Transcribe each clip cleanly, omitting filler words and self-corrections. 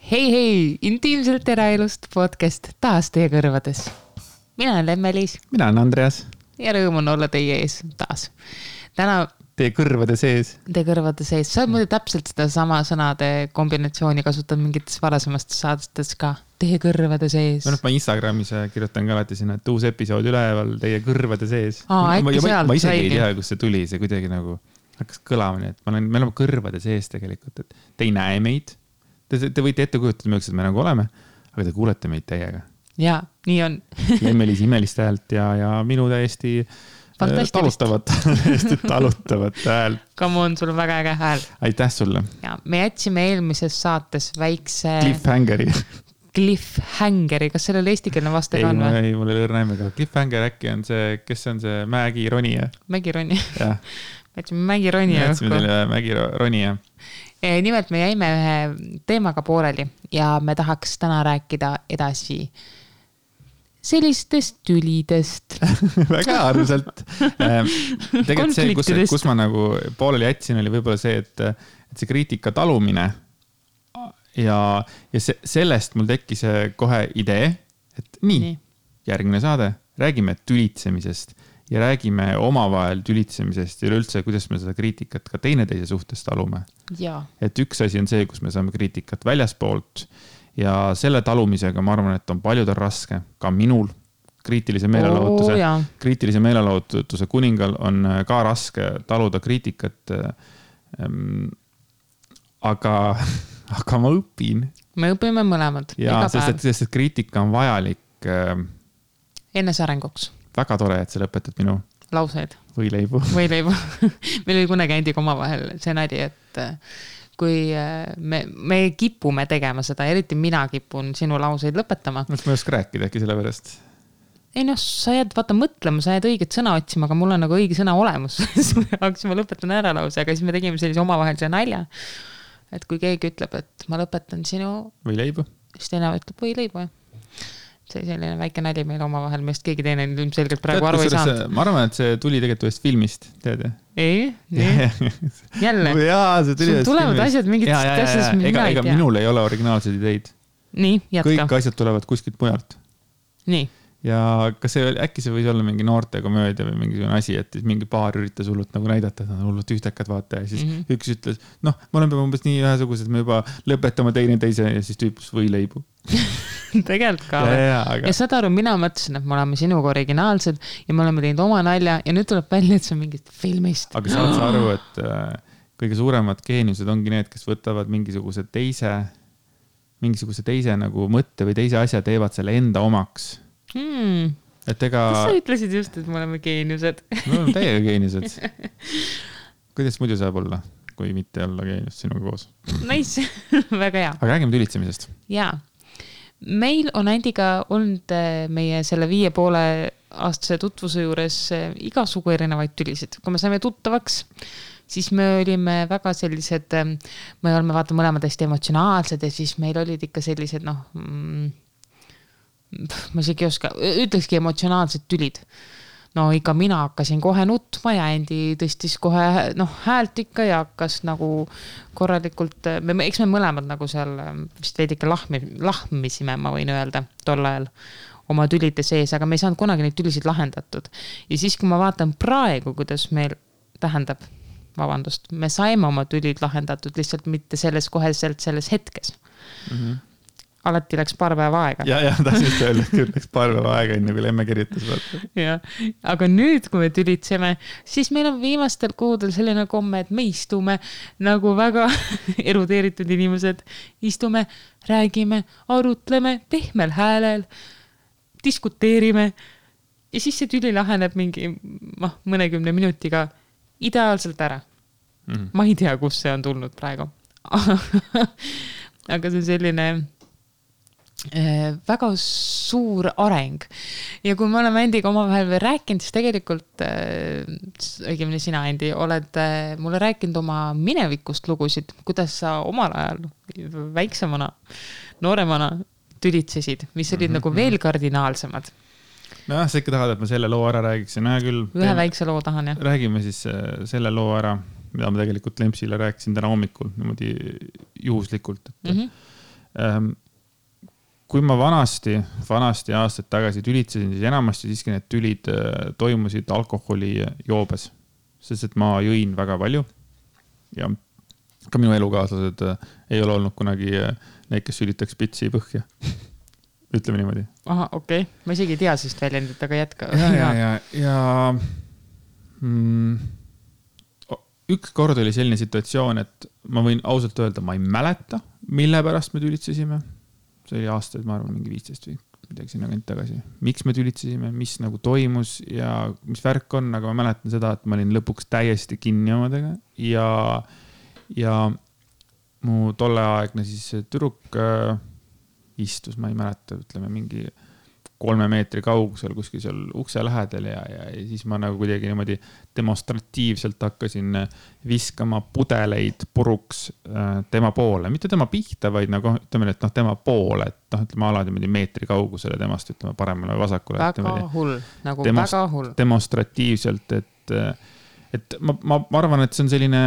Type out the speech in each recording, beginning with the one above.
Hei, intiimselt eraelust podcast taas teie kõrvades. Mina olen Lemmelis. Mina olen Andreas. Ja rõõm on olla teie ees taas. Täna... Teie kõrvade sees. Teie kõrvade sees. Sa oled muidu täpselt seda sama sõnade kombinatsiooni kasutad mingites varasemast saadetes ka. Teie kõrvade sees. Ma Instagramis kirjutan ka alati sinna, et uus episood üleval teie kõrvade sees. Ma isegi ei tea, kus see tuli. See kuidagi nagu hakkas kõlama nii, et me oleme kõrvade sees tegelikult. Et te ei näe meid. Te võite ette kujutada, millised me nagu oleme, aga te kuulete meid teiega. Jaa, nii on. Lemmelis imelist häält ja minu täiesti talutavat häält. Come on, sul on väga äge hääl. Aitäh sulle. Ja, me jätsime eelmises saates väikse... Cliffhangeri. Kas sellel eestikeelne vaste ka on? Ei, mul ei lõrna nimega. Cliffhanger äkki on see, kes on see mägironija? Mägironija. Me jätsime mägironija. Mägironija. Nimelt me jäime ühe teemaga pooleli ja me tahaks täna rääkida edasi sellistest tülidest. Väga arvselt. Tegelikult see, kus ma nagu pooleli jätsin, oli võib-olla see, et see kriitika talumine ja sellest mul tekkis kohe idee, et nii. Järgmine saade, räägime tülitsemisest ja räägime omavahel tülitsemisest ja üleüldse, kuidas me seda kriitikat ka teineteise suhtes talume. Ja. Et üks asi on see, kus me saame kriitikat väljaspoolt ja selle talumisega ma arvan, et on paljudel raske, ka minul kriitilise meelelahutuse kuningal on ka raske taluda kriitikat, aga ma õpin. Me õpime mõlemad. Ja, sest kriitika on vajalik enesearenguks. Väga tore, et sa lõpetad minu lauseid. Võileibu. Meil oli kunagi Andiga omavahel see nadi, et kui me kipume tegema seda, eriti mina kipun sinu lauseid lõpetama. Ma ei oska rääkida äkki selle pärast. Ei sa jääd mõtlema, sa jääd õiget sõna otsima, aga mul on nagu õige sõna olemus. Hakkasime lõpetan ära lause, aga siis me tegime sellise omavahelise nalja. Et kui keegi ütleb, et ma lõpetan sinu... Võileibu. Siis teine ütleb võileibu, jah. See selline väike nali meil omavahel, millest keegi teine ilmselgelt praegu aru ei saanud. Ma arvan, et see tuli tegelikult ühest filmist, tead? Ei. Jälle. Sul tulevad asjad mingit asjast, mida ei tea. Ega minul ei ole originaalseid ideid. Nii, jätka. Kõik asjad tulevad kuskilt mujalt. Nii. Ja kas äkki see võis olla mingi noorte komöödia või mingisugune asi, et mingi paar üritas hullult nagu näidata, et nad on hullult ühtekad vaata ja siis üks ütles, me oleme umbes nii ühesugused, me juba lõpetame teineteise ja siis tüüpus võileibu. Tegelikult ka. Ja saad aru, mina mõtlesin, et me oleme sinuga originaalsed ja me oleme teinud oma nalja ja nüüd tuleb välja, et see on mingit filmist. Aga saad sa aru, et kõige suuremad geeniused ongi need, kes võtavad mingisuguse teise nagu mõtte või teise asja teevad selle enda omaks. Kas sa ütlesid just, et me oleme geeniused? Me oleme täiega geeniused. Kuidas muidu saab olla, kui mitte olla geenius sinuga koos? Nice, väga hea. Aga räägime tülitsemisest. Jaa. Meil on Andiga olnud meie selle 5,5 aastase tutvuse juures igasugu erinevaid tülisid. Kui me saime tuttavaks, siis me olime väga sellised, me oleme mõlemad hästi emotsionaalsed ja siis meil olid ikka sellised, ma isegi ei oska, ütlekski emotsionaalsed tülid. Ikka mina hakkasin kohe nutma ja Andi tõstis kohe häält ikka ja hakkas nagu korralikult, eks me mõlemad nagu seal vist veidike lahmisime, ma võin öelda, tol ajal oma tülide sees, aga me ei saanud kunagi neid tülisid lahendatud. Ja siis, kui ma vaatan praegu, kuidas meil tähendab, me saime oma tülid lahendatud lihtsalt mitte selles hetkes. Alati läks paar päeva aega. Ja tahtsin öelda, küll läks paar päeva aega enne, kui Lemme kirjutas. Ja, aga nüüd, kui me tülitseme, siis meil on viimastel kuudel selline komme, et me istume nagu väga erudeeritud inimesed. Istume, räägime, arutleme, pehmel häälel, diskuteerime ja siis see tüli laheneb mingi mõnekümne minutiga ideaalselt ära. Ma ei tea, kus see on tulnud praegu. Aga see on selline... väga suur areng. Ja kui me oleme Andiga omavahel veel rääkinud, siis tegelikult, õigemini sina, Andi, oled mulle rääkinud oma minevikust lugusid, kuidas sa omal ajal väiksemana, nooremana tülitsesid, mis olid nagu veel kardinaalsemad. Sa ikka tahad, et ma selle loo ära räägiksin. Ühe väikse loo tahan, jah. Räägime siis selle loo ära, mida ma tegelikult Lempsile rääkisin täna hommikul, niimoodi juhuslikult, et kui ma vanasti aastaid tagasi tülitsesin, siis enamasti siiski need tülid toimusid alkoholi joobes, sest et ma jõin väga palju ja ka minu elukaaslased ei ole olnud kunagi need, kes sülitaks pitsi põhja. Ütleme niimoodi. Aha, okei. Ma isegi ei tea sest väljendit, aga jätka. Ja üks kord oli selline situatsioon, et ma võin ausalt öelda, ma ei mäleta, mille pärast me tülitsesime. See oli aastaid, ma arvan, mingi 15 või midagi sinna kant tagasi. Miks me tülitsesime, mis nagu toimus ja mis värk on, aga ma mäletan seda, et ma olin lõpuks täiesti kinni omadega ja mu tolleaegne siis tüdruk istus, ma ei mäleta, ütleme mingi 3 meetri kaugusel kuskil seal ukse lähedal ja siis ma nagu kuidagi niimoodi demonstratiivselt hakkasin viskama pudeleid puruks tema poole, mitte tema pihta, vaid nagu ütleme, et tema poole, et ütleme alati meetri kaugusele temast, ütleme paremale või vasakule. Väga hull, nagu väga hull. Demonstratiivselt, et ma arvan, et see on selline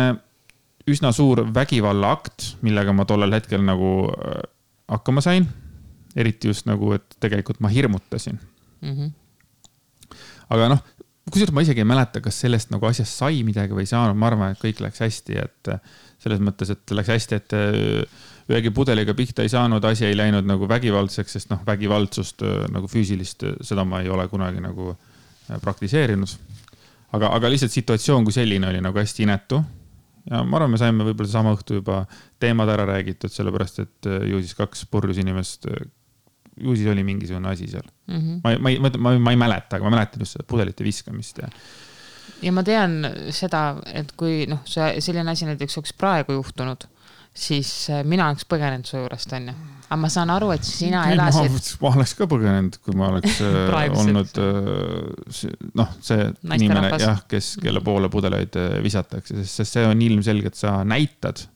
üsna suur vägivalla akt, millega ma tollel hetkel nagu hakkama sain. Eriti just nagu, et tegelikult ma hirmutasin. Aga kusjuures ma isegi ei mäleta, kas sellest nagu asjast sai midagi või ei saanud. Ma arvan, et kõik läks hästi, et selles mõttes, et läks hästi, et ühegi pudeliga pihta ei saanud, asi ei läinud nagu vägivaldseks, sest vägivaldsust nagu füüsilist, seda ma ei ole kunagi nagu praktiseerinud. Aga lihtsalt situatsioon kui selline oli nagu hästi inetu. Ja ma arvan, me saime võib-olla sama õhtu juba teemad ära räägitud, sellepärast, et ju siis 2 purjus inimest, ju siis oli mingisugune asi seal. Ma ei mäleta, aga ma mäletan just seda pudelite viskamist. Ja ma tean seda, et kui selline asi näiteks oleks praegu juhtunud, siis mina oleks põgenenud su juurest, on ju. Aga ma saan aru, et sina elasid... Ma oleks ka põgenenud, kui ma oleks olnud see inimene, kelle poole pudeleid visatakse, sest see on ilmselgelt, sa näitad.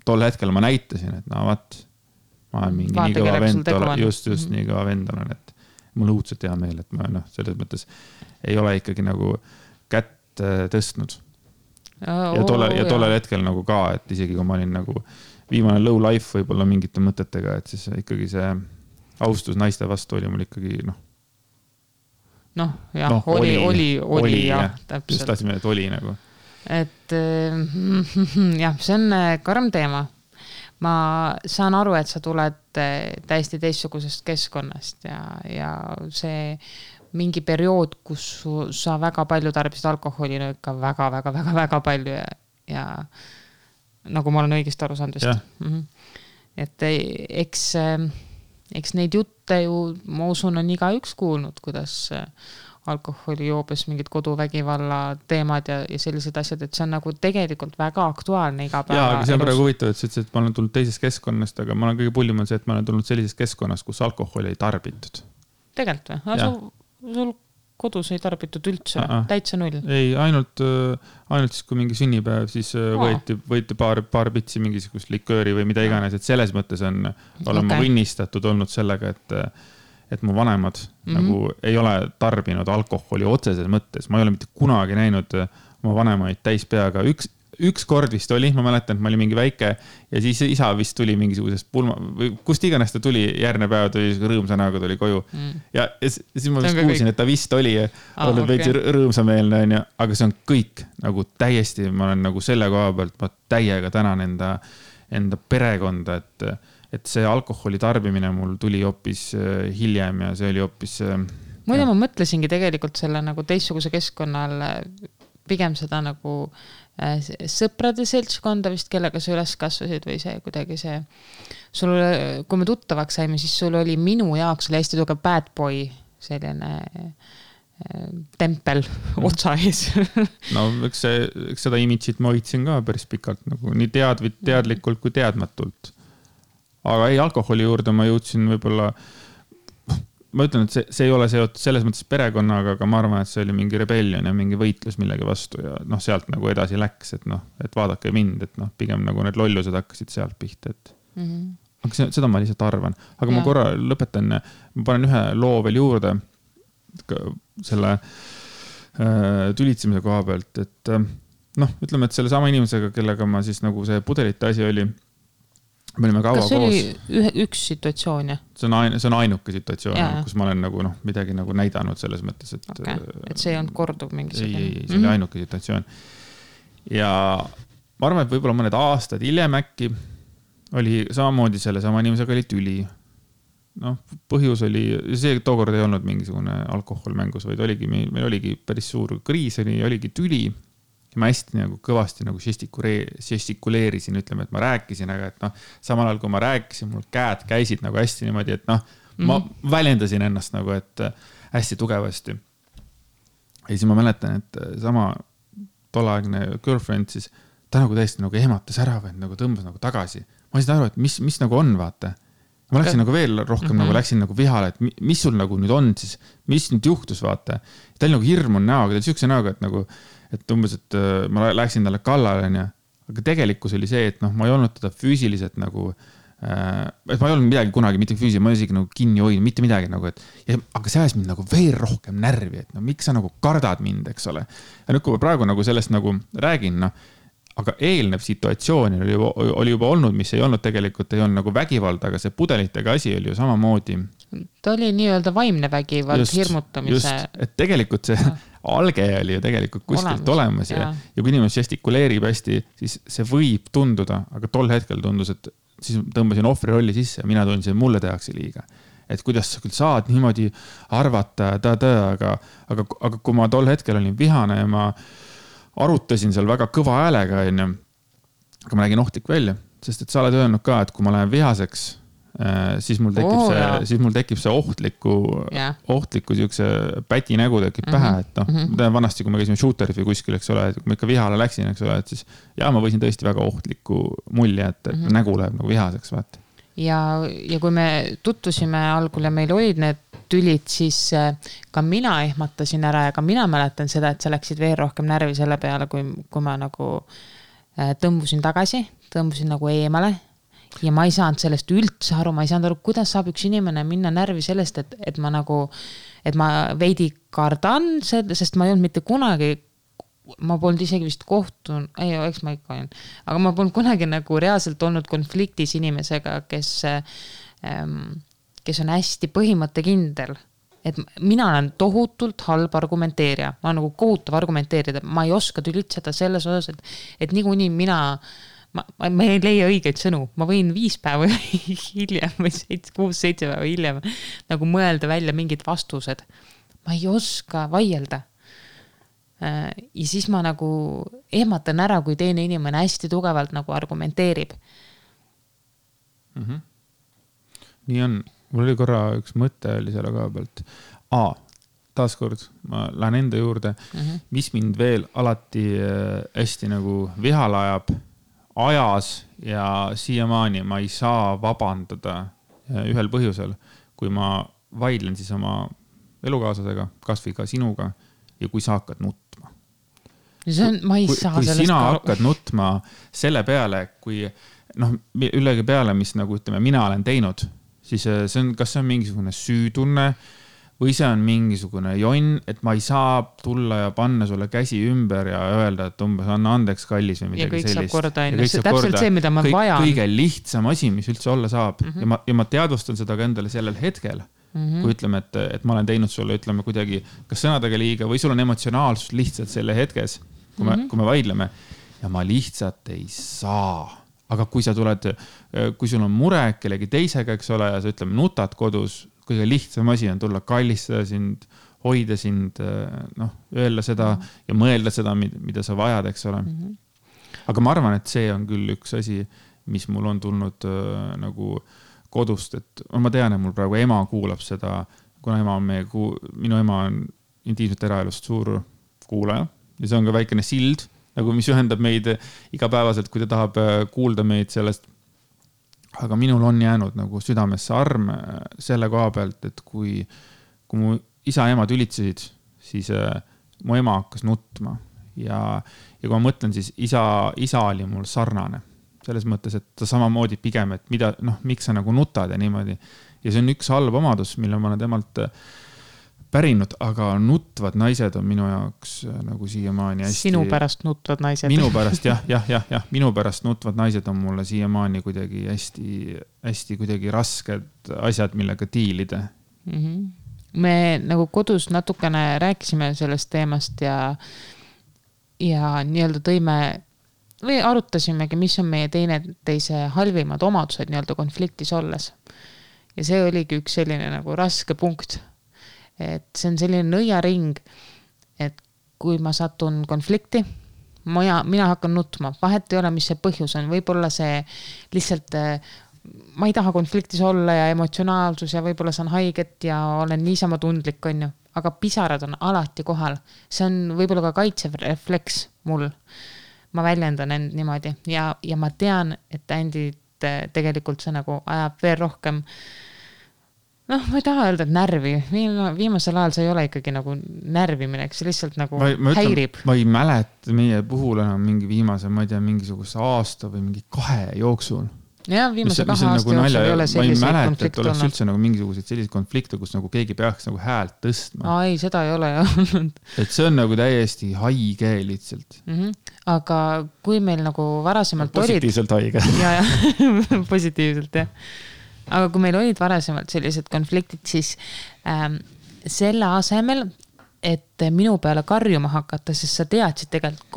Tol hetkel ma näitasin, et vaat, ma olen mingi nii kõva vend, just nii kõva vend olen, et mul õudselt hea meel, et ma selles mõttes ei ole ikkagi nagu kätt tõstnud. Ja tollel hetkel nagu ka, et isegi kui ma olin nagu viimane low life võib-olla mingite mõtetega, et siis ikkagi see austus naiste vastu oli mul ikkagi oli jah, täpselt. Just tahtsime, et oli nagu. Et jah, see on karm teema. Ma saan aru, et sa tuled täiesti teistsugusest keskkonnast ja see mingi periood, kus sa väga palju tarbisid alkoholi, ikka väga palju ja nagu ma olen õigesti aru saanud vist. Et eks neid jutte ju, ma usun, on igaüks kuulnud, kuidas alkoholi joobes mingid koduvägivalla teemad ja sellised asjad, et see on nagu tegelikult väga aktuaalne iga päeva. Jaa, aga see on praegu huvitav, et sa ütlesid, et ma olen tulnud teisest keskkonnast, aga ma olen kõige pullim on see, et ma olen tulnud sellisest keskkonnast, kus alkoholi ei tarbitud. Tegelikult või? Sul kodus ei tarbitud üldse, täitsa null? Ei, ainult siis, kui mingi sünnipäev, siis võeti paar pitsi mingisugust likööri või mida iganes, et selles mõttes olen ma õnnistatud olnud sellega, et mu vanemad nagu ei ole tarbinud alkoholi otseses mõttes. Ma ei ole mitte kunagi näinud oma vanemaid täispeaga. Üks kord vist oli, ma mäletan, et ma olin mingi väike ja siis isa vist tuli mingisugusest pulma või kust iganes ta tuli, järgne päev tuli rõõmsa näoga tuli koju. Ja siis ma vist kuulsin, et ta vist oli olnud veidi rõõmsameelne, aga see on kõik nagu täiesti, ma olen nagu selle koha pealt, ma täiega tänan enda perekonda, et see alkoholi tarbimine mul tuli hoopis hiljem ja see oli hoopis... Muide, ma mõtlesingi tegelikult selle nagu teistsuguse keskkonnal pigem seda nagu sõprade seltskonda vist, kellega sa üles kasvasid või see kuidagi see... Kui me tuttavaks saime, siis sul oli minu jaoks oli hästi tugev bad boy, selline tempel otsa ees. No, eks seda imitsit ma hoidsin ka päris pikalt, nagu nii teadlikult kui teadmatult. Aga ei, alkoholi juurde ma jõudsin võib-olla... Ma ütlen, et see ei ole seotud selles mõttes perekonnaga, aga ma arvan, et see oli mingi rebellion ja mingi võitlus millegi vastu ja sealt nagu edasi läks, et vaadake mind, et pigem nagu need lollused hakkasid sealt pihta, et aga seda ma lihtsalt arvan. Aga ma korra lõpetan, ma panen ühe loo veel juurde selle tülitsemise koha pealt, et ütleme, et selle sama inimesega, kellega ma siis nagu see pudelite asi oli, me olime kaua koos. Kas see oli üks situatsioon, jah? See on ainuke situatsioon, kus ma olen nagu, midagi nagu näidanud selles mõttes, et... Okay. Et see ei olnud korduv mingisugune. Ei, see oli ainuke situatsioon. Ja ma arvan, et võib-olla mõned aastad hiljem äkki oli samamoodi selle sama inimesega oli tüli. Põhjus oli, see tookord ei olnud mingisugune alkohol mängus, vaid meil oligi päris suur kriis, oligi tüli. Ja ma hästi nagu kõvasti nagu žestikuleerisin, ütleme, et ma rääkisin, aga et samal ajal kui ma rääkisin, mul käed käisid nagu hästi niimoodi, et ma väljendasin ennast nagu, et hästi tugevasti. Ja siis ma mäletan, et sama tolleaegne girlfriend siis, ta nagu täiesti nagu ehmatas ära või nagu tõmbas nagu tagasi. Ma ei saa aru, et mis nagu on, vaata. Ma läksin nagu veel rohkem, nagu läksin nagu vihale, et mis sul nagu nüüd on siis, mis nüüd juhtus, vaata. Ta oli nagu hirm on näoga, ta oli siukse näoga, et nagu, et umbes, et ma läksin talle kallale, aga tegelikkus oli see, et ma ei olnud teda füüsiliselt nagu, et ma ei olnud midagi kunagi, mitte füüsiliselt, ma isegi nagu kinni hoidnud, mitte midagi nagu, aga see ajas mind nagu veel rohkem närvi, et miks sa nagu kardad mind, eks ole. Ja nüüd, kui ma praegu nagu sellest nagu räägin, aga eelnev situatsioon oli juba olnud, mis ei olnud tegelikult, ei olnud nagu vägivald, aga see pudelitega asi oli ju samamoodi. Ta oli nii-öelda vaimne vägivald, hirmutamise. Just, et tegelikult see alge oli ju tegelikult kuskilt olemas ja kui inimene žestikuleerib hästi, siis see võib tunduda, aga tol hetkel tundus, et siis tõmbasin ohvri rolli sisse ja mina tundsin, et mulle tehakse liiga. Et kuidas sa küll saad niimoodi arvata, aga kui ma tol hetkel olin vihane ja ma arutasin seal väga kõva häälega, aga ma nägin ohtlik välja, sest et sa oled öelnud ka, et kui ma lähen vihaseks, siis mul tekib see ohtliku siukse päti nägu tekib pähe, et vanasti, kui me käisime shooterif või kuskil, eks ole, et kui ma ikka vihale läksin, eks ole, et siis ma võisin tõesti väga ohtliku mulje, et nägu läheb nagu vihaseks, vaata. Ja kui me tuttusime algul ja meil olid need tülid, siis ka mina ehmatasin ära ja ka mina mäletan seda, et sa läksid veel rohkem närvi selle peale, kui ma nagu tõmbusin tagasi, tõmbusin nagu eemale ja ma ei saanud sellest üldse aru, ma ei saanud aru, kuidas saab üks inimene minna närvi sellest, et ma veidi kardan, sest ma ei olnud mitte kunagi, ma polnud isegi vist eks ma ikka olin, aga ma polnud kunagi nagu reaalselt olnud konfliktis inimesega, kes on hästi põhimõttekindel. Et mina olen tohutult halb argumenteerija. Ma olen nagu kohutav argumenteerida. Ma ei oska tülitseda selles osas, et niikuinii ma ei leia õigeid sõnu. Ma võin 5 päeva hiljem või 6-7 päeva hiljem nagu mõelda välja mingid vastused. Ma ei oska vaielda. Ja siis ma nagu ehmatan ära, kui teine inimene hästi tugevalt nagu argumenteerib. Nii on. Mul oli korra üks mõte oli selle koha pealt. Taaskord, ma lähen enda juurde, mis mind veel alati hästi nagu vihale ajas ja siiamaani ma ei saa vabandada ühel põhjusel, kui ma vaidlen siis oma elukaaslasega, kas või ka sinuga ja kui sa hakkad nutma. Ma ei saa kui sina hakkad nutma selle peale, kui ülegi peale, mis nagu ütleme, mina olen teinud, siis kas see on mingisugune süütunne või see on mingisugune jonn, et ma ei saa tulla ja panna sulle käsi ümber ja öelda, et umbes anna andeks kallis või midagi sellist. Ja kõik saab korda enne. See täpselt see, mida ma vajan. Kõige lihtsam asi, mis üldse olla saab. Ja ma teadvustan seda ka endale sellel hetkel, kui ütleme, et ma olen teinud sulle, ütleme kuidagi, kas sõnadega liiga või sul on emotsionaalsus lihtsalt selle hetkes, kui me vaidleme ja ma lihtsalt ei saa. Aga kui sa tuled, kui sul on mure kellegi teisega, eks ole, ja sa ütleme, nutad kodus, kõige lihtsam asi on tulla kallistada sind, hoida sind, öelda seda ja mõelda seda, mida sa vajad, eks ole. Aga ma arvan, et see on küll üks asi, mis mul on tulnud nagu kodust, et ma tean, et mul praegu ema kuulab seda, kuna minu ema on intiimset eraelust suur kuulaja ja see on ka väikene sild, nagu mis ühendab meid igapäevaselt, kui ta tahab kuulda meid sellest. Aga minul on jäänud nagu südamesse arm selle koha pealt, et kui mu isa ja ema tülitsesid, siis mu ema hakkas nutma. Ja kui ma mõtlen, siis isa oli mul sarnane. Selles mõttes, et ta samamoodi pigem, et miks sa nagu nutad ja niimoodi. Ja see on üks halb omadus, mille ma olen temalt pärinud, aga nutvad naised on minu jaoks nagu siiamaani hästi... Sinu pärast nutvad naised. Minu pärast, jah. Minu pärast nutvad naised on mulle siiamaani kuidagi hästi kuidagi rasked asjad, millega diilida. Me nagu kodus natukene rääkisime sellest teemast ja nii-öelda tõime või arutasimegi, mis on meie teineteise halvimad omadused nii-öelda konfliktis olles. Ja see oligi üks selline nagu raske punkt. Et see on selline nõiaring, et kui ma satun konflikti, mina hakkan nutma. Vahet ei ole, mis see põhjus on. Võib-olla see lihtsalt, ma ei taha konfliktis olla ja emotsionaalsus ja võib-olla saan haiget ja olen niisama tundlik, on ju. Aga pisarad on alati kohal. See on võib-olla ka kaitsev refleks mul. Ma väljendan end niimoodi ja ma tean, et Andit tegelikult see nagu ajab veel rohkem. Ma ei taha öelda, et närvi. Viimasel ajal see ei ole ikkagi nagu närvimine, see lihtsalt nagu häirib. Ma ei mäleta meie puhul enam mingi viimase, ma ei tea, mingisuguse aasta või mingi 2 jooksul. Ja, viimase 2 aasta jooksul ei ole selliseid konflikte olnud. Ma ei mäleta, et oleks üldse nagu mingisuguseid selliseid konflikte, kus nagu keegi peaks nagu häält tõstma. Ei, seda ei ole olnud. Et see on nagu täiesti haige lihtsalt. Aga kui meil nagu varasemalt positiivselt haige. Ja, positiivselt, jah. Aga kui meil olid varasemalt sellised konfliktid, siis selle asemel, et minu peale karjuma hakata, sest sa teadsid tegelikult,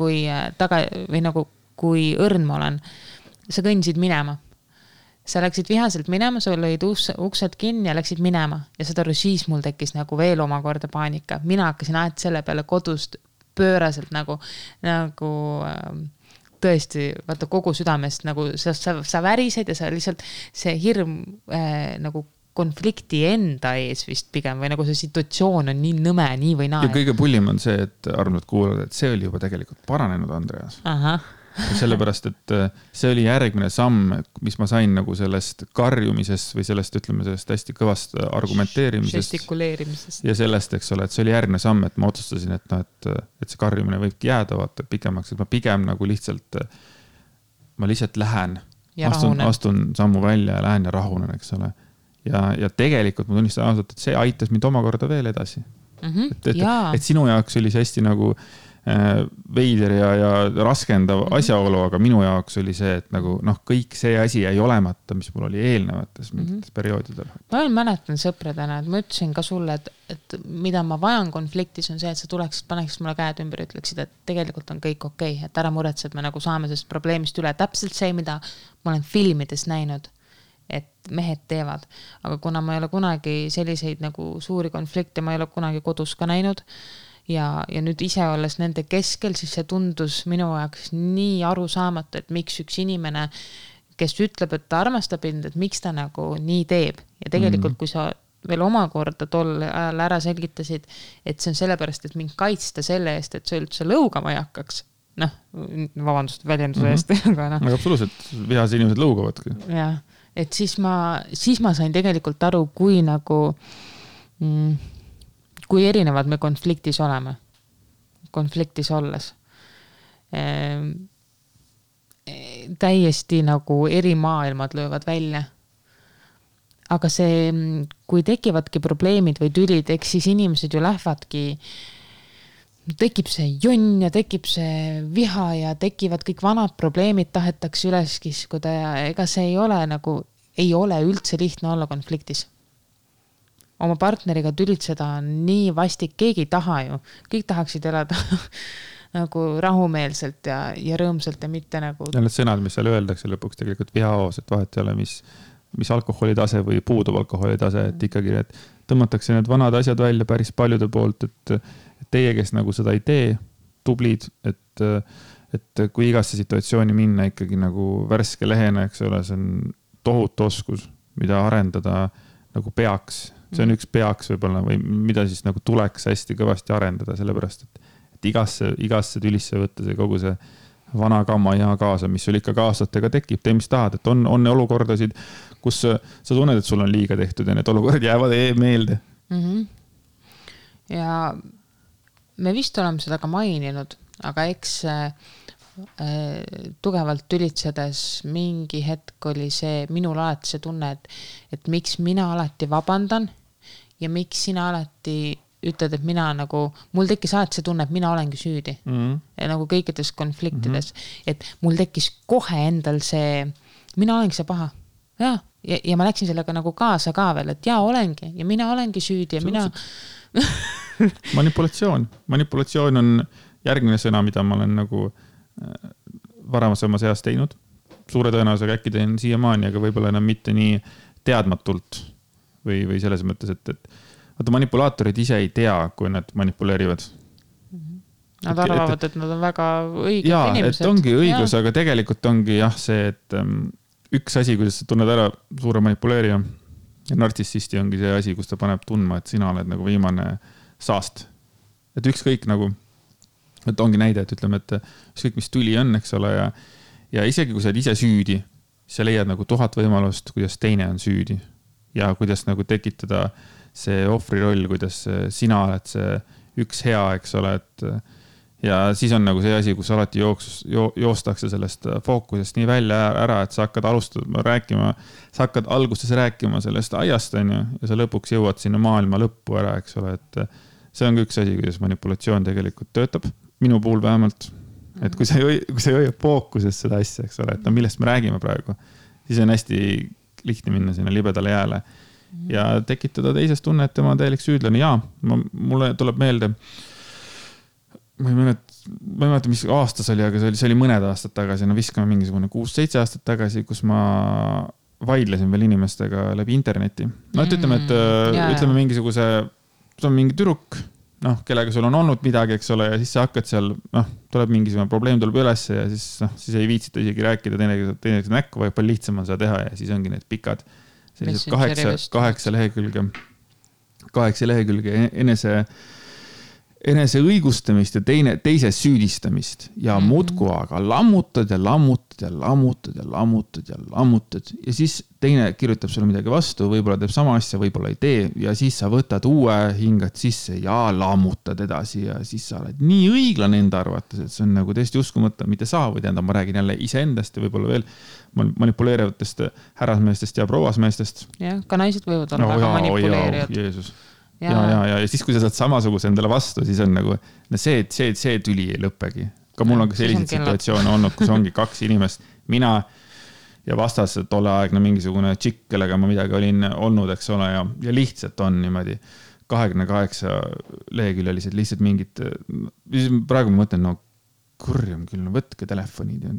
kui õrn ma olen, sa kõndisid minema. Sa läksid vihaselt minema, sa lõid uksed kinni ja läksid minema. Ja seda siis mul tekkis nagu veel omakorda paanika. Mina hakkasin selle peale kodust pööraselt nagu tõesti, vaata kogu südamest, nagu sa värised ja sa lihtsalt see hirm nagu konflikti enda ees vist pigem või nagu see situatsioon on nii nõme, nii või naa. Ja kõige pullim on see, et armsad kuulavad, et see oli juba tegelikult paranenud, Andreas. Sellepärast, et see oli järgmine samm, mis ma sain nagu sellest karjumisest või sellest, ütleme, sellest hästi kõvast argumenteerimisest. Žestikuleerimisest. Ja sellest, eks ole, et see oli järgmine samm, et ma otsustasin, et see karjumine võibki jääda vaata pikemaks, et ma pigem nagu lihtsalt lähen, astun sammu välja ja lähen ja rahunen, eks ole. Ja tegelikult ma tunnistan ausalt, et see aitas mind omakorda veel edasi. Et sinu jaoks oli see hästi nagu veider ja raskendav asjaolu, aga minu jaoks oli see, et nagu kõik see asi jäi olemata, mis mul oli eelnevates mingites perioodidel. Ma mäletan sõpradena, et ma ütlesin ka sulle, et mida ma vajan konfliktis on see, et sa tuleksid, paneksid mulle käed ümber ja ütleksid, et tegelikult on kõik okei, et ära muretse, et me nagu saame sellest probleemist üle. Täpselt see, mida ma olen filmides näinud, et mehed teevad. Aga kuna ma ei ole kunagi selliseid nagu suuri konflikte, ma ei ole kunagi kodus ka näinud, ja nüüd ise olles nende keskel, siis see tundus minu jaoks nii arusaamatu, et miks üks inimene, kes ütleb, et ta armastab end, et miks ta nagu nii teeb. Ja tegelikult, kui sa veel omakorda tol ajal ära selgitasid, et see on sellepärast, et mind kaitsta selle eest, et see üldse lõugama ei hakkaks. Vabandust väljenduse eest. Aga absoluutselt, vihas inimesed lõugavadki. Ja, et siis ma sain tegelikult aru, kui nagu... kui erinevad me konfliktis oleme, konfliktis olles. Täiesti nagu eri maailmad löövad välja. Aga see, kui tekivadki probleemid või tülid, eks siis inimesed ju lähevadki, tekib see jonn ja tekib see viha ja tekivad kõik vanad probleemid, tahetakse üles kiskuda ja ega see ei ole üldse lihtne olla konfliktis. Oma partneriga tülitseda on nii vastik, keegi ei taha ju. Kõik tahaksid elada nagu rahumeelselt ja rõõmselt ja mitte nagu... Ja need sõnad, mis seal öeldakse lõpuks tegelikult vihaos, et vahet ei ole, mis alkoholitase või puudub alkoholitase, et ikkagi tõmmatakse need vanad asjad välja päris paljude poolt, et teie, kes nagu seda ei tee, tublid, et kui igasse situatsiooni minna ikkagi nagu värske lehena, eks ole, see on tohutu oskus, mida arendada nagu peaks. See on üks peaks võib-olla või mida siis nagu tuleks hästi kõvasti arendada, sellepärast, et igasse tülisse võtta see kogu see vana kamma ja kaasa, mis sul ikka aastatega tekib, tee mis tahad, et on olukordasid, kus sa tunned, et sul on liiga tehtud ja need olukorrad jäävad meelde. Ja me vist oleme seda ka maininud, aga eks tugevalt tülitsedes mingi hetk oli see minul alati see tunne, et miks mina alati vabandan ja miks sina alati ütled, et mina nagu, mul tekkis alati see tunne, et mina olengi süüdi. Ja nagu kõikides konfliktides, et mul tekkis kohe endal see, mina olengi see paha. Ja ma läksin sellega nagu kaasa ka veel, et olengi ja mina olengi süüdi ja mina... Manipulatsioon on järgmine sõna, mida ma olen nagu varasemas eas teinud. Suure tõenäosusega äkki teen siiamaani, aga võib-olla enam mitte nii teadmatult või selles mõttes, et manipulaatorid ise ei tea, kui nad manipuleerivad. Nad arvavad, et nad on väga õiged inimesed. Et ongi õigus, aga tegelikult ongi see, et üks asi, kuidas sa tunned ära suure manipuleerija ja nartsissisti ongi see asi, kus ta paneb tundma, et sina oled nagu viimane saast. Et ükskõik nagu, et ongi näide, et ütleme, et ükskõik mis tuli on, eks ole, ja isegi kui sa oled ise süüdi, sa leiad nagu 1000 võimalust, kuidas teine on süüdi ja kuidas nagu tekitada see ohvri roll, kuidas sina oled see üks hea, eks ole, et ja siis on nagu see asi, kus alati joostakse sellest fookusest nii välja ära, et sa hakkad rääkima, sa hakkad alguses rääkima sellest aiast, on ju, ja sa lõpuks jõuad sinna maailma lõppu ära, eks ole, et see on üks asi, kuidas manipulatsioon tegelikult töötab, minu puhul vähemalt, et kui sa ei hoia fookuses seda asja, eks ole, et millest me räägime praegu, siis on hästi lihtne minna sinna libedale jääle ja tekitada teisest tunne, et tema on täielik süüdlane. Mulle tuleb meelde, ma ei mäleta, mis aastas oli, aga see oli mõned aastad tagasi, viskame mingisugune 6-7 aastat tagasi, kus ma vaidlesin veel inimestega läbi interneti. Ütleme, et ütleme mingisuguse, see on mingi tüdruk, kellega sul on olnud midagi, eks ole, ja siis sa hakkad seal, tuleb mingisugune probleem tuleb üles ja siis ei viitsita isegi rääkida teineteise näkku, vaid palju lihtsam on seda teha ja siis ongi need pikad sellised 8 lehekülge enese õigustamist ja teise süüdistamist ja muudku aga lammutad ja siis teine kirjutab sulle midagi vastu, võib-olla teeb sama asja, võib-olla ei tee ja siis sa võtad uue, hingad sisse ja lammutad edasi ja siis sa oled nii õiglane enda arvates, et see on nagu täiesti uskumata, mitte sa või ma räägin jälle iseendast ja võib-olla veel manipuleerivatest härrasmeestest ja prouasmeestest. Jah, ka naised võivad olla väga manipuleerijad. Jeesus. Ja siis, kui sa saad samasuguse endale vastu, siis on nagu, see tüli ei lõppegi. Ka mul on ka selliseid situatsioone olnud, kus ongi 2 inimest, mina ja vastas tolleaegne mingisugune tšikk, kellega ma midagi olin olnud, eks ole, ja lihtsalt on niimoodi 28 leheküljelised lihtsalt mingid, praegu ma mõtlen, kurjam küll, võtke telefonid ja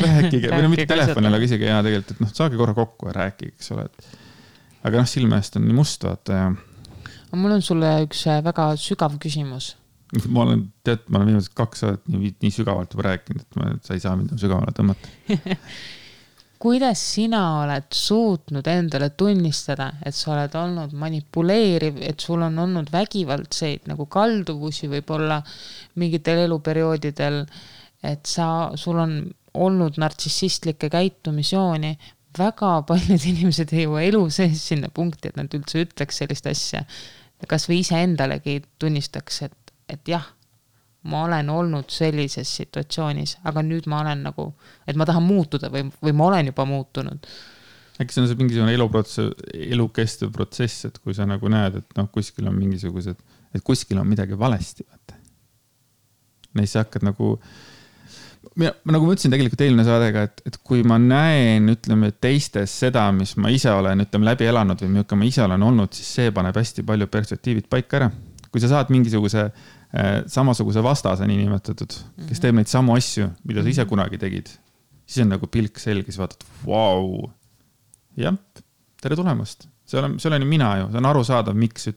rääkige, või mitte telefonil, aga isegi tegelikult, et saage korra kokku ja rääkige, eks ole, aga silme eest on nii must, vaata ja mul on sulle üks väga sügav küsimus. Ma olen viimased 2 aastat nii sügavalt juba rääkinud, et sa ei saa mind sügavale tõmmata. Kuidas sina oled suutnud endale tunnistada, et sa oled olnud manipuleeriv, et sul on olnud vägivaldseid nagu kalduvusi võib-olla mingitel eluperioodidel, et sul on olnud nartsissistlikke käitumisjooni. Väga paljud inimesed ei jõua elu sees sinna punkti, et nad üldse ütleks sellist asja. Kas või ise endalegi tunnistaks, et jah, ma olen olnud sellises situatsioonis, aga nüüd ma olen nagu, et ma tahan muutuda või ma olen juba muutunud. Äkki see on see mingisugune elukestev protsess, et kui sa nagu näed, et kuskil on mingisugused, et kuskil on midagi valesti. Neis sa hakkad nagu ma ütlesin tegelikult eelmine saadega, et kui ma näen, ütleme, teistes seda, mis ma ise olen, läbi elanud või millega ma ise olen olnud, siis see paneb hästi palju perspektiivid paika ära. Kui sa saad mingisuguse samasuguse vastase niinimetatud, kes teeb neid samu asju, mida sa ise kunagi tegid, siis on nagu pilk selge, siis vaatad, vau, jah, tere tulemast. See olen mina ju, see on arusaadav, miks,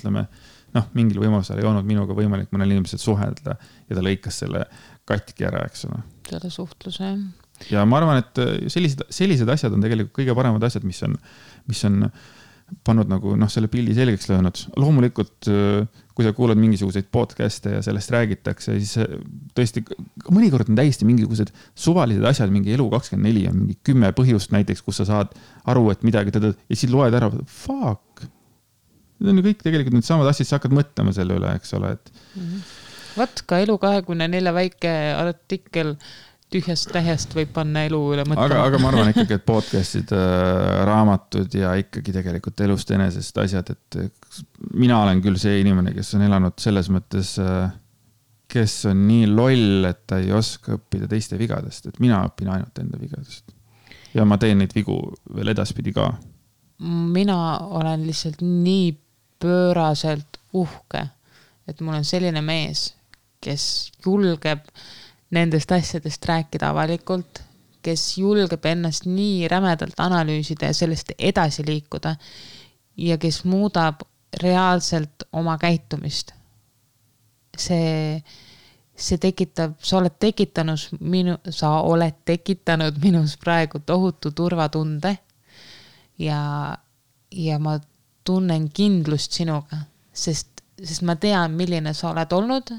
mingil võimalusel ei olnud minuga võimalik mõnel inimesel suhelda ja ta lõikas selle katki ära, eks ole. Selle suhtluse. Ja ma arvan, et sellised asjad on tegelikult kõige paremad asjad, mis on pannud nagu selle pildi selgeks löönud. Loomulikult, kui sa kuulad mingisuguseid podcast'e ja sellest räägitakse, siis tõesti, mõnikord on täiesti mingisugused suvalised asjad, mingi elu 24 on mingi 10 põhjust näiteks, kus sa saad aru, et midagi ja siis loed ära, fuck. Need on ju kõik tegelikult need samad asjad, sa hakkad mõtlema selle üle, eks ole, et Võt ka Elu 24 väike artikkel tühjast tähest võib panna elu üle mõtlema. Aga ma arvan ikkagi, et podcast'id, raamatud ja ikkagi tegelikult elust enesest asjad, et mina olen küll see inimene, kes on elanud selles mõttes, kes on nii loll, et ta ei oska õppida teiste vigadest, et mina õpin ainult enda vigadest. Ja ma teen neid vigu veel edaspidi ka. Mina olen lihtsalt nii pööraselt uhke, et mul on selline mees, kes julgeb nendest asjadest rääkida avalikult, kes julgeb ennast nii rämedalt analüüsida ja sellest edasi liikuda ja kes muudab reaalselt oma käitumist. See tekitab, sa oled tekitanud minus praegu tohutu turvatunde ja ma tunnen kindlust sinuga, sest ma tean, milline sa oled olnud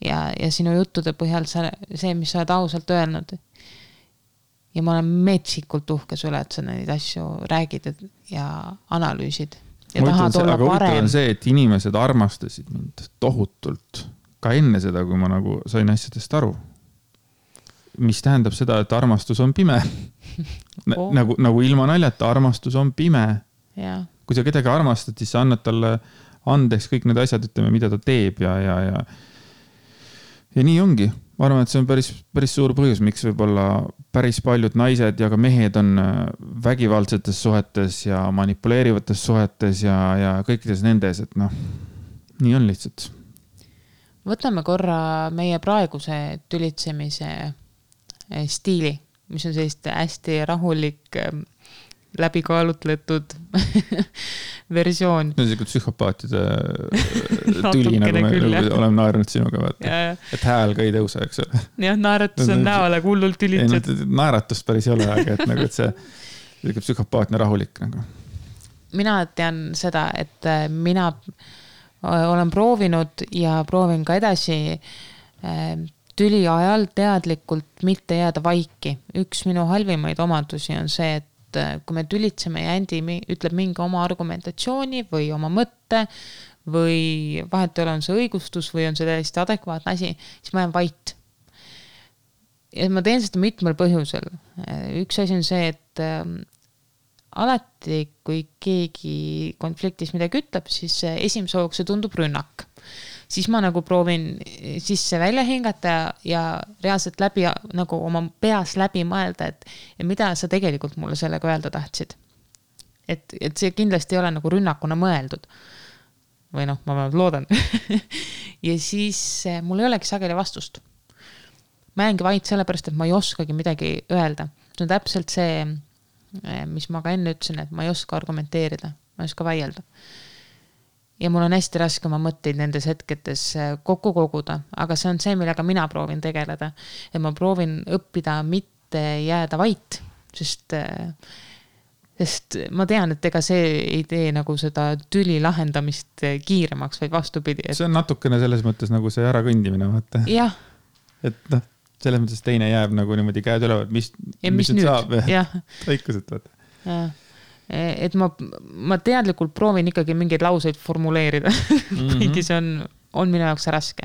ja sinu juttude põhjal see, mis sa oled ausalt öelnud. Ja ma olen metsikult uhke sulle, et sa neid asju räägid ja analüüsid. Ja tahad olla aga parem. On see, et inimesed armastasid mind tohutult ka enne seda, kui ma nagu sain asjadest aru. Mis tähendab seda, et armastus on pime. Nagu ilma naljata, armastus on pime. Ja. Kui sa kedagi armastad, siis sa annad talle andeks kõik need asjad, ütleme, mida ta teeb ja nii ongi. Ma arvan, et see on päris suur põhjus, miks võib-olla päris paljud naised ja ka mehed on vägivaldsetes suhetes ja manipuleerivates suhetes ja kõikides nendes, et nii on lihtsalt. Võtame korra meie praeguse tülitsemise stiili, mis on sellist hästi rahulik, läbikaalutletud versioon. See on selline psühhopaatide tüli, nagu me oleme naernud sinuga, vaata. Et hääl ka ei tõusa, eks ole. Jah, naeratus on näole hullult tülitsed. Naeratust päris ei ole, aga et, nagu, et see psühhopaatne rahulik. Nagu. Mina tean seda, et mina olen proovinud ja proovin ka edasi tüli ajal teadlikult mitte jääda vaiki. Üks minu halvimaid omadusi on see, et kui me tülitseme ja Andi ütleb mingi oma argumentatsiooni või oma mõtte või vahet ei ole, on see õigustus või on see täiesti adekvaatne asi, siis ma jään vait. Ja ma teen seda mitmel põhjusel. Üks asi on see, et alati, kui keegi konfliktis midagi ütleb, siis esimese hoogs see tundub rünnak. Siis ma nagu proovin sisse välja hingata ja reaalselt läbi, nagu oma peas läbi mõelda, et mida sa tegelikult mulle sellega öelda tahtsid. Et see kindlasti ei ole nagu rünnakuna mõeldud. Või ma loodan. Ja siis mul ei olegi sageli vastust. Ma jäängi vaid sellepärast, et ma ei oskagi midagi öelda. See on täpselt see, mis ma ka enne ütlesin, et ma ei oska argumenteerida, ma ei oska väielda. Ja mul on hästi raske oma mõtteid nendes hetketes kokku koguda, aga see on see, millega mina proovin tegeleda. Ja ma proovin õppida mitte jääda vait, sest ma tean, et ega see ei tee nagu seda tüli lahendamist kiiremaks, vaid vastupidi. See on natukene selles mõttes nagu see ära kõndimine, vaata. Jah. Et selles mõttes teine jääb nagu niimoodi käed ülevad, mis nüüd saab. Õikuselt, vaata. Jah. Et ma teadlikult proovin ikkagi mingeid lauseid formuleerida. Kuigi see on minu jaoks raske.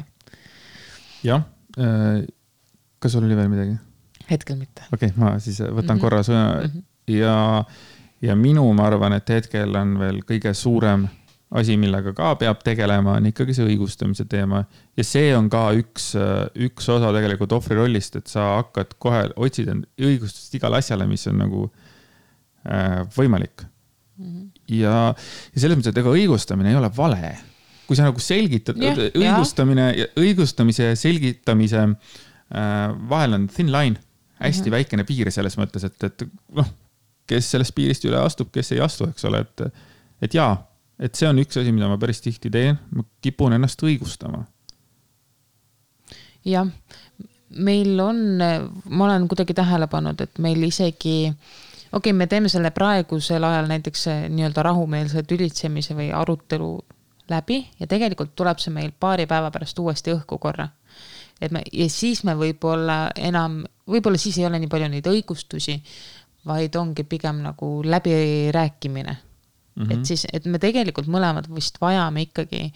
Jah. Kas sul oli veel midagi? Hetkel mitte. Okei, ma siis võtan korra sõna. Ja minu, ma arvan, et hetkel on veel kõige suurem asi, millega ka peab tegelema, on ikkagi see õigustamise teema. Ja see on ka üks osa tegelikult ohvri rollist, et sa hakkad kohe otsida õigustust igale asjale, mis on nagu võimalik. Ja selles mõttes, et ega õigustamine ei ole vale. Kui sa nagu selgitad, õigustamise ja selgitamise vahel on thin line, hästi väikene piir selles mõttes, et kes sellest piirist üle astub, kes ei astu, eks ole, et jaa, et see on üks asi, mida ma päris tihti teen, ma kipun ennast õigustama. Jah, meil on, ma olen kuidagi tähele pannud, et meil isegi me teeme selle praegusel ajal näiteks nii-öelda rahumeelse tülitsemise või arutelu läbi ja tegelikult tuleb see meil paari päeva pärast uuesti õhku korra. Ja siis me võib-olla siis ei ole nii palju neid õigustusi, vaid ongi pigem nagu läbirääkimine. Et me tegelikult mõlemad vist vajame ikkagi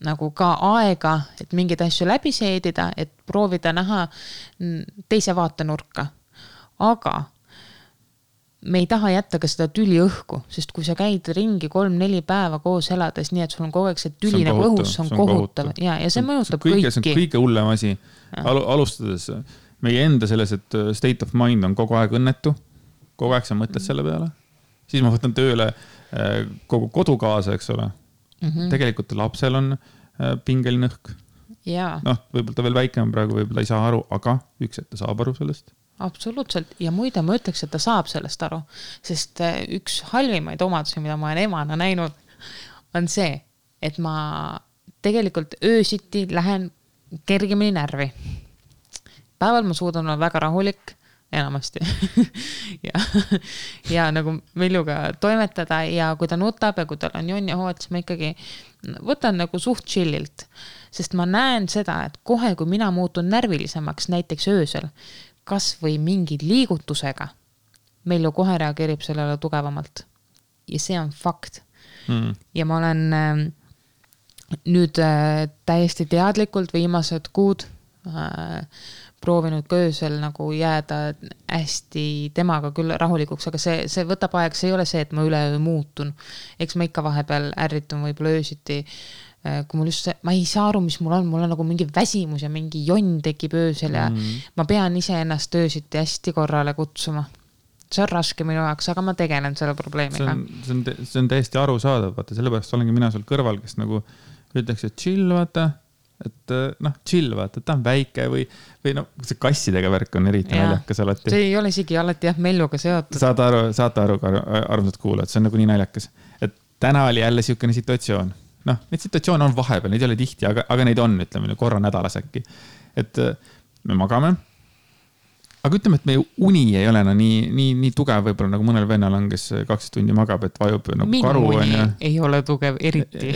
nagu ka aega, et mingeid asju läbi seedida, et proovida näha teise vaatenurka. Aga me ei taha jätta ka seda tüli õhku, sest kui sa käid ringi 3-4 päeva koos elades, nii et sul on kogu aeg see tüli nagu õhus, see on kohutav. Ja see mõjutab kõiki. See on kõige hullem asi. Alustades meie enda selles, et state of mind on kogu aeg õnnetu. Kogu aeg sa mõtled selle peale. Siis ma võtan tööle kogu kodu kaasa, eks ole. Tegelikult lapsel on pingeline õhk. Noh, võib-olla ta veel väike on praegu, võib-olla ei saa aru, aga üks, et ta saab aru sellest. Absoluutselt. Ja muide ma ütleks, et ta saab sellest aru, sest üks halvimaid omadusi, mida ma olen emana näinud, on see, et ma tegelikult öösiti lähen kergemini närvi. Päeval ma suudan olla väga rahulik, enamasti. ja nagu Viljuga toimetada ja kui ta nutab ja kui tal on jonn ja hood, siis ma ikkagi võtan nagu suht chillilt, sest ma näen seda, et kohe, kui mina muutun närvilisemaks, näiteks öösel, kas või mingi liigutusega, meil ju kohe reageerib sellele tugevamalt. Ja see on fakt. Ja ma olen nüüd täiesti teadlikult viimased kuud proovinud ka öösel nagu jääda hästi temaga küll rahulikuks, aga see võtab aeg, see ei ole see, et ma üleöö muutun. Eks ma ikka vahepeal ärritun võib-olla öösiti, kui mul just ma ei saa aru, mis mul on nagu mingi väsimus ja mingi jonn tekib öösel ja ma pean ise ennast öösiti hästi korrale kutsuma. See on raske minu jaoks, aga ma tegelen selle probleemiga. See on täiesti arusaadav, vaata, sellepärast olengi mina sul kõrval, kes nagu ütleks, et chill, vaata, et chill, vaata, ta on väike või see kassidega värk on eriti naljakas alati. See ei ole isegi alati Melluga seotud. Saate aru, armsad kuulajad, see on nagu nii naljakas. Et täna oli jälle siukene situatsioon. Neid situatsioone on vahepeal, neid ei ole tihti, aga neid on, ütleme, korra nädalas äkki. Et me magame. Aga ütleme, et meie uni ei ole nii tugev võib-olla nagu mõnel vennal on, kes 12 tundi magab, et vajub nagu minu karu. Minu uni ei ole tugev eriti.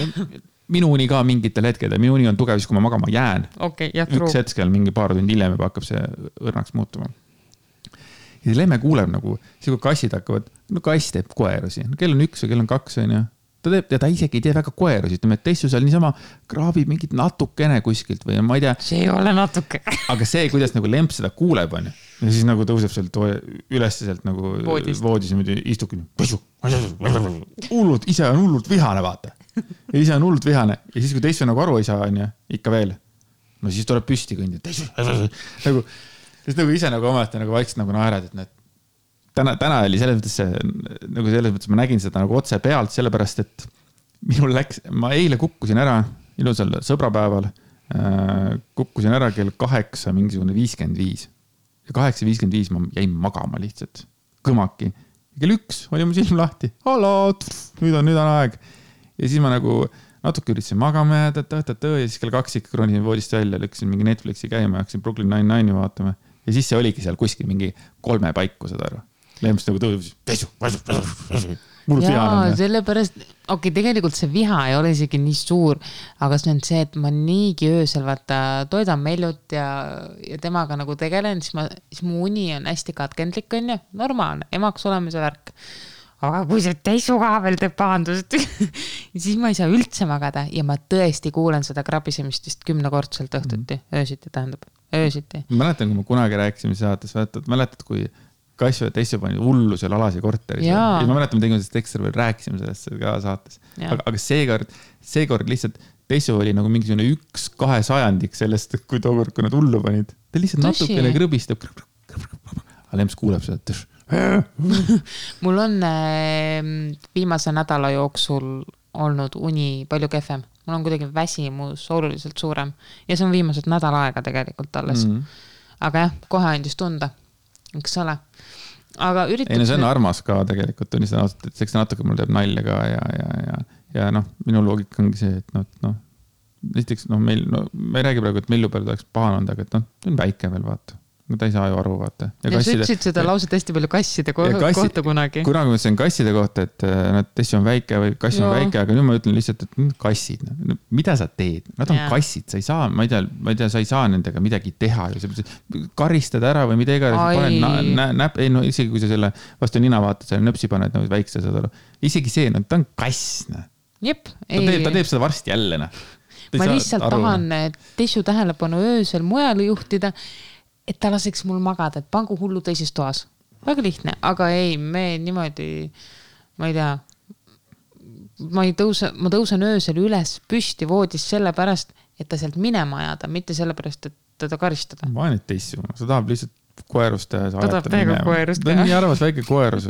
Minu uni ka mingitel hetkedel. Minu uni on tugev, siis kui ma magama jään. Üks hetkel mingi paar tundi hiljem juba hakkab see õrnaks muutuma. Ja see lemme kuuleb nagu, siis kui kassid hakkavad, kass teeb koerusi. Kell on 1 või kell on 2, on ju. Ta isegi ei tee väga koerusi, ütleme, et teissu seal niisama kraabib mingit natukene kuskilt või ma ei tea. See ei ole natuke. Aga see, kuidas nagu lemp seda kuuleb on ja siis nagu tõuseb sealt üles sealt nagu voodis ja istub hullult, ise on hullult vihane, vaata. Ja ise on hullult vihane ja siis kui teissu nagu aru ei saa, on ja ikka veel. No siis tuleb püsti kõndi. Nagu ise nagu ometi nagu vaikselt nagu naerad, et täna oli selles mõttes ma nägin seda nagu otse pealt, sellepärast, et ma eile kukkusin ära ilusal sõbrapäeval, kukkusin ära kell 8 mingisugune 55 ja 8.55 ma jäin magama lihtsalt, kõmaki. Ja kell 1 oli mu silm lahti, nüüd on aeg. Ja siis ma nagu natuke üritasin magama ja siis kell 2 ikka kronisin voodist välja, lükkasin mingi Netflixi käima ja hakkasin Brooklyn Nine-Nine'i vaatama. Ja siis see oligi seal kuskil mingi 3 paiku seda aru. Lemmist nagu tõusis, jaa, sellepärast, tegelikult see viha ei ole isegi nii suur, aga see on see, et ma niigi öösel vaata toidan Mellut ja temaga nagu tegelen, siis mu uni on hästi katkendlik, on ju, normaalne, emaks olemise värk. Aga kui see teissu ka veel teeb pahandust, siis ma ei saa üldse magada ja ma tõesti kuulen seda krabisemist vist 10-kordselt õhtuti, öösiti tähendab, öösiti. Mäletan, kui ma kunagi rääkisime saates, mäletad, kui Kassu ja teissu pani hullu seal Alasi korteris. Ja ma mäletan, me tegime sellest ekstra veel rääkisime sellest ka saates. Aga seekord lihtsalt teissu oli nagu mingisugune 1/2 sellest, kui tookord, kui nad hullu panid. Ta lihtsalt natukene krõbistab. Aga Lems kuuleb seda. Mul on viimase nädala jooksul olnud uni palju kehvem. Mul on kuidagi väsimus oluliselt suurem. Ja see on viimased nädal aega tegelikult alles. Aga jah, kohe andis tunda. Eks ole. Aga ei, no see on armas ka tegelikult, tunnistan ausalt, et see natuke mul teeb nalja ka ja minu loogika ongi see, et näiteks me ei räägi praegu, et Mellu peal oleks pahane olnud, aga see on väike veel, vaata. Ta ei saa ju aru, vaata. Ja sa ütlesid seda lauset hästi palju kasside kohta kunagi. Kunagi ma ütlesin kasside kohta, et tessi on väike või kass on väike, aga nüüd ma ütlen lihtsalt, et kassid. Mida sa teed? Nad on kassid, sa ei saa, ma ei tea, sa ei saa nendega midagi teha. Karistada ära või midagi. Isegi kui sa selle vastu nina vaatad, selle nöpsi paned väikse, isegi see, ta on kass. Jep. Ta teeb seda varsti jälle. ma lihtsalt tahan Tessu tähelepanu öösel mujale juhtida, et ta laseks mul magada, et pangu hullu teises toas. Väga lihtne, aga ei, me niimoodi, ma ei tea, ma tõusen öösel üles püsti voodis sellepärast, et ta sealt minema ajada, mitte sellepärast, et teda karistada. Ma olen Tessu, sa tahab lihtsalt koerust teha. Ta tahab täiega koerust teha. Ta on nii arvas väike koerus,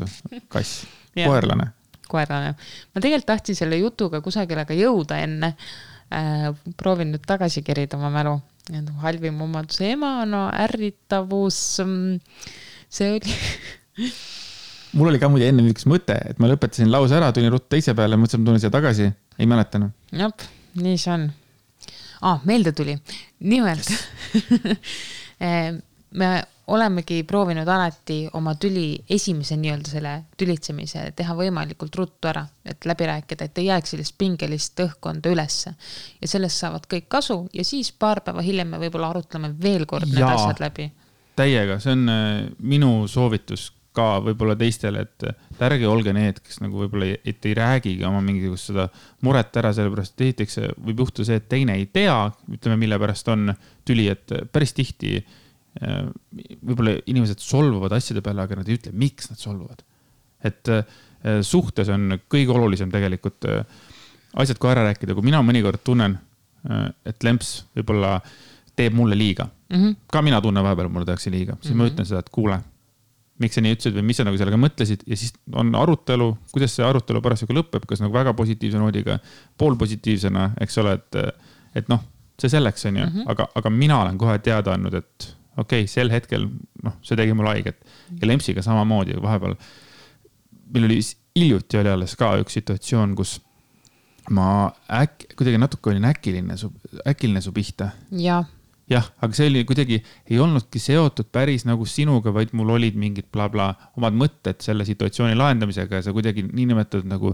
kass, koerlane. Ma tegelikult tahtsin selle jutuga kusagile ka jõuda enne. Proovin nüüd tagasi kerida oma mälu. Halvim omaduse ema, no ärritavus. See oli... Mul oli ka muide enne üks mõte, et ma lõpetasin lause ära, tulin ruttu teise peale, mõtlesin, tulen siia tagasi. Ei mäletanud. Jop, nii see on. Meelde tuli. Nimelt. Me olemegi proovinud alati oma esimese nii-öelda selle tülitsemise teha võimalikult ruttu ära, et läbi rääkida, et ei jääks sellist pingelist õhkkonda ülesse. Ja sellest saavad kõik kasu ja siis paar päeva hiljem me võib-olla arutleme veel kord need asjad läbi. Täiega, see on minu soovitus ka võib-olla teistele, et ärge olge need, kes nagu võib-olla et ei räägigi oma mingisugust seda muret ära, sellepärast esiteks võib juhtuda see, et teine ei tea, ütleme, mille pärast on tüli, et päris tihti võib-olla inimesed solvuvad asjade peale, aga nad ei ütle, miks nad solvuvad. Et suhtes on kõige olulisem tegelikult asjad kui ära rääkida, kui mina mõnikord tunnen, et lemps võib-olla teeb mulle liiga. Ka mina tunnen vahepeal, mulle tehakse liiga. Siis ma ütlen seda, et kuule, miks sa nii ütlesid või mis sa nagu sellega mõtlesid ja siis on arutelu, kuidas see arutelu parasjagu lõpeb, kas nagu väga positiivse noodiga, poolpositiivsena, eks ole, et noh, see selleks on ju, aga mina olen kohe teada andnud, et okei, sel hetkel, noh, see tegi mul haiget ja lempsiga samamoodi vahepeal. Meil oli hiljuti oli alles ka üks situatsioon, kus ma kuidagi natuke olin äkiline su pihta. Jah, aga see oli kuidagi, ei olnudki seotud päris nagu sinuga, vaid mul olid mingid bla-bla omad mõtted selle situatsiooni lahendamisega ja sa kuidagi nii nimetatud nagu...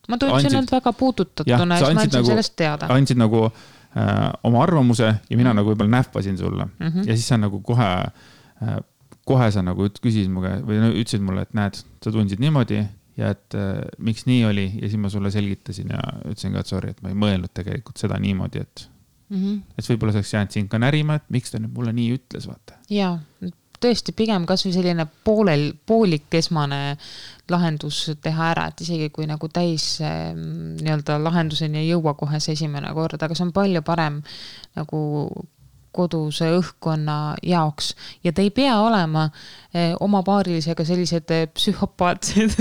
Ma tundsin end väga puudutatuna ja ma andsin sellest teada. Andsid nagu oma arvamuse ja mina nagu võib-olla nähvasin sulle. Ja siis sa nagu kohe sa nagu küsisid mulle või ütlesid mulle, et näed, sa tundsid niimoodi ja et miks nii oli ja siis ma sulle selgitasin ja ütlesin ka, et sorry, et ma ei mõelnud tegelikult seda niimoodi, et võib-olla saaks jäänud siin ka närima, et miks ta nüüd mulle nii ütles, vaata. Jaa, tõesti pigem kas või selline poolik esmane lahendus teha ära, et isegi kui nagu täis nii-öelda lahenduseni ei jõua kohe see esimene kord, aga see on palju parem nagu koduse õhkkonna jaoks ja te ei pea olema oma paarilisega sellised psühhopaatsed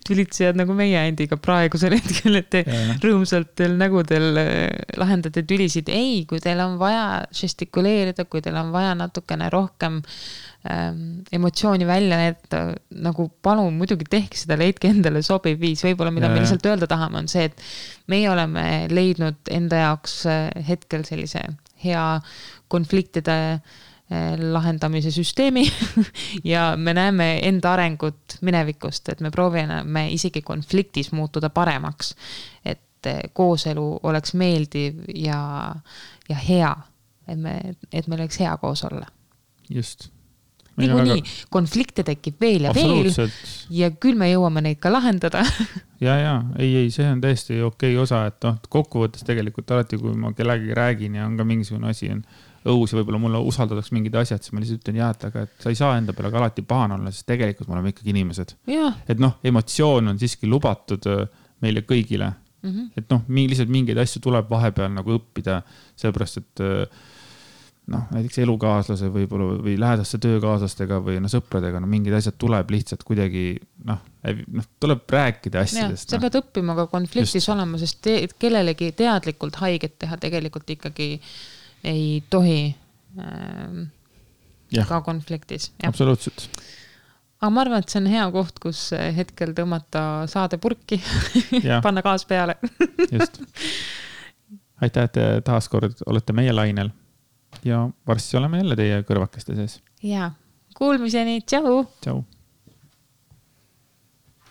tülitsejad nagu meie endiga praegusel hetkel, et te rõõmsalt teil nägudel lahendate tülisid. Ei, kui teil on vaja žestikuleerida, kui teil on vaja natukene rohkem emotsiooni välja näidata, nagu palun muidugi tehke seda, leidke endale sobiv viis. Võib-olla mida me lihtsalt öelda tahame on see, et meie oleme leidnud enda jaoks hetkel sellise hea konfliktide lahendamise süsteemi ja me näeme enda arengut minevikust, et me proovime isegi konfliktis muutuda paremaks, et kooselu oleks meeldiv ja hea, et meil oleks hea koos olla. Just. Niikuinii, konflikte tekib veel ja veel ja küll me jõuame neid ka lahendada. ei, see on täiesti okei osa, et kokkuvõttes tegelikult alati, kui ma kellegi räägin ja on ka mingisugune asi on õus ja võib-olla mulle usaldadaks mingid asjad, siis ma lihtsalt ütlen aga et sa ei saa enda peale ka alati pahane olla, sest tegelikult me oleme ikkagi inimesed. Et emotsioon on siiski lubatud meile kõigile. Et lihtsalt mingeid asju tuleb vahepeal nagu õppida, sellepärast, et näiteks elukaaslase või lähedaste töökaaslastega või sõpradega, mingid asjad tuleb lihtsalt kuidagi, tuleb rääkida asjadest. Sa pead õppima ka konfliktis olema, sest kellelegi teadlikult haiget teha tegelikult ikkagi ei tohi ka konfliktis. Absoluutselt. Aga ma arvan, et see on hea koht, kus hetkel tõmmata saade purki, panna gaas peale. Just. Aitäh, et taaskord olete meie lainel ja varsti oleme jälle teie kõrvakeste sees. Kuulmiseni, tšau! Tšau!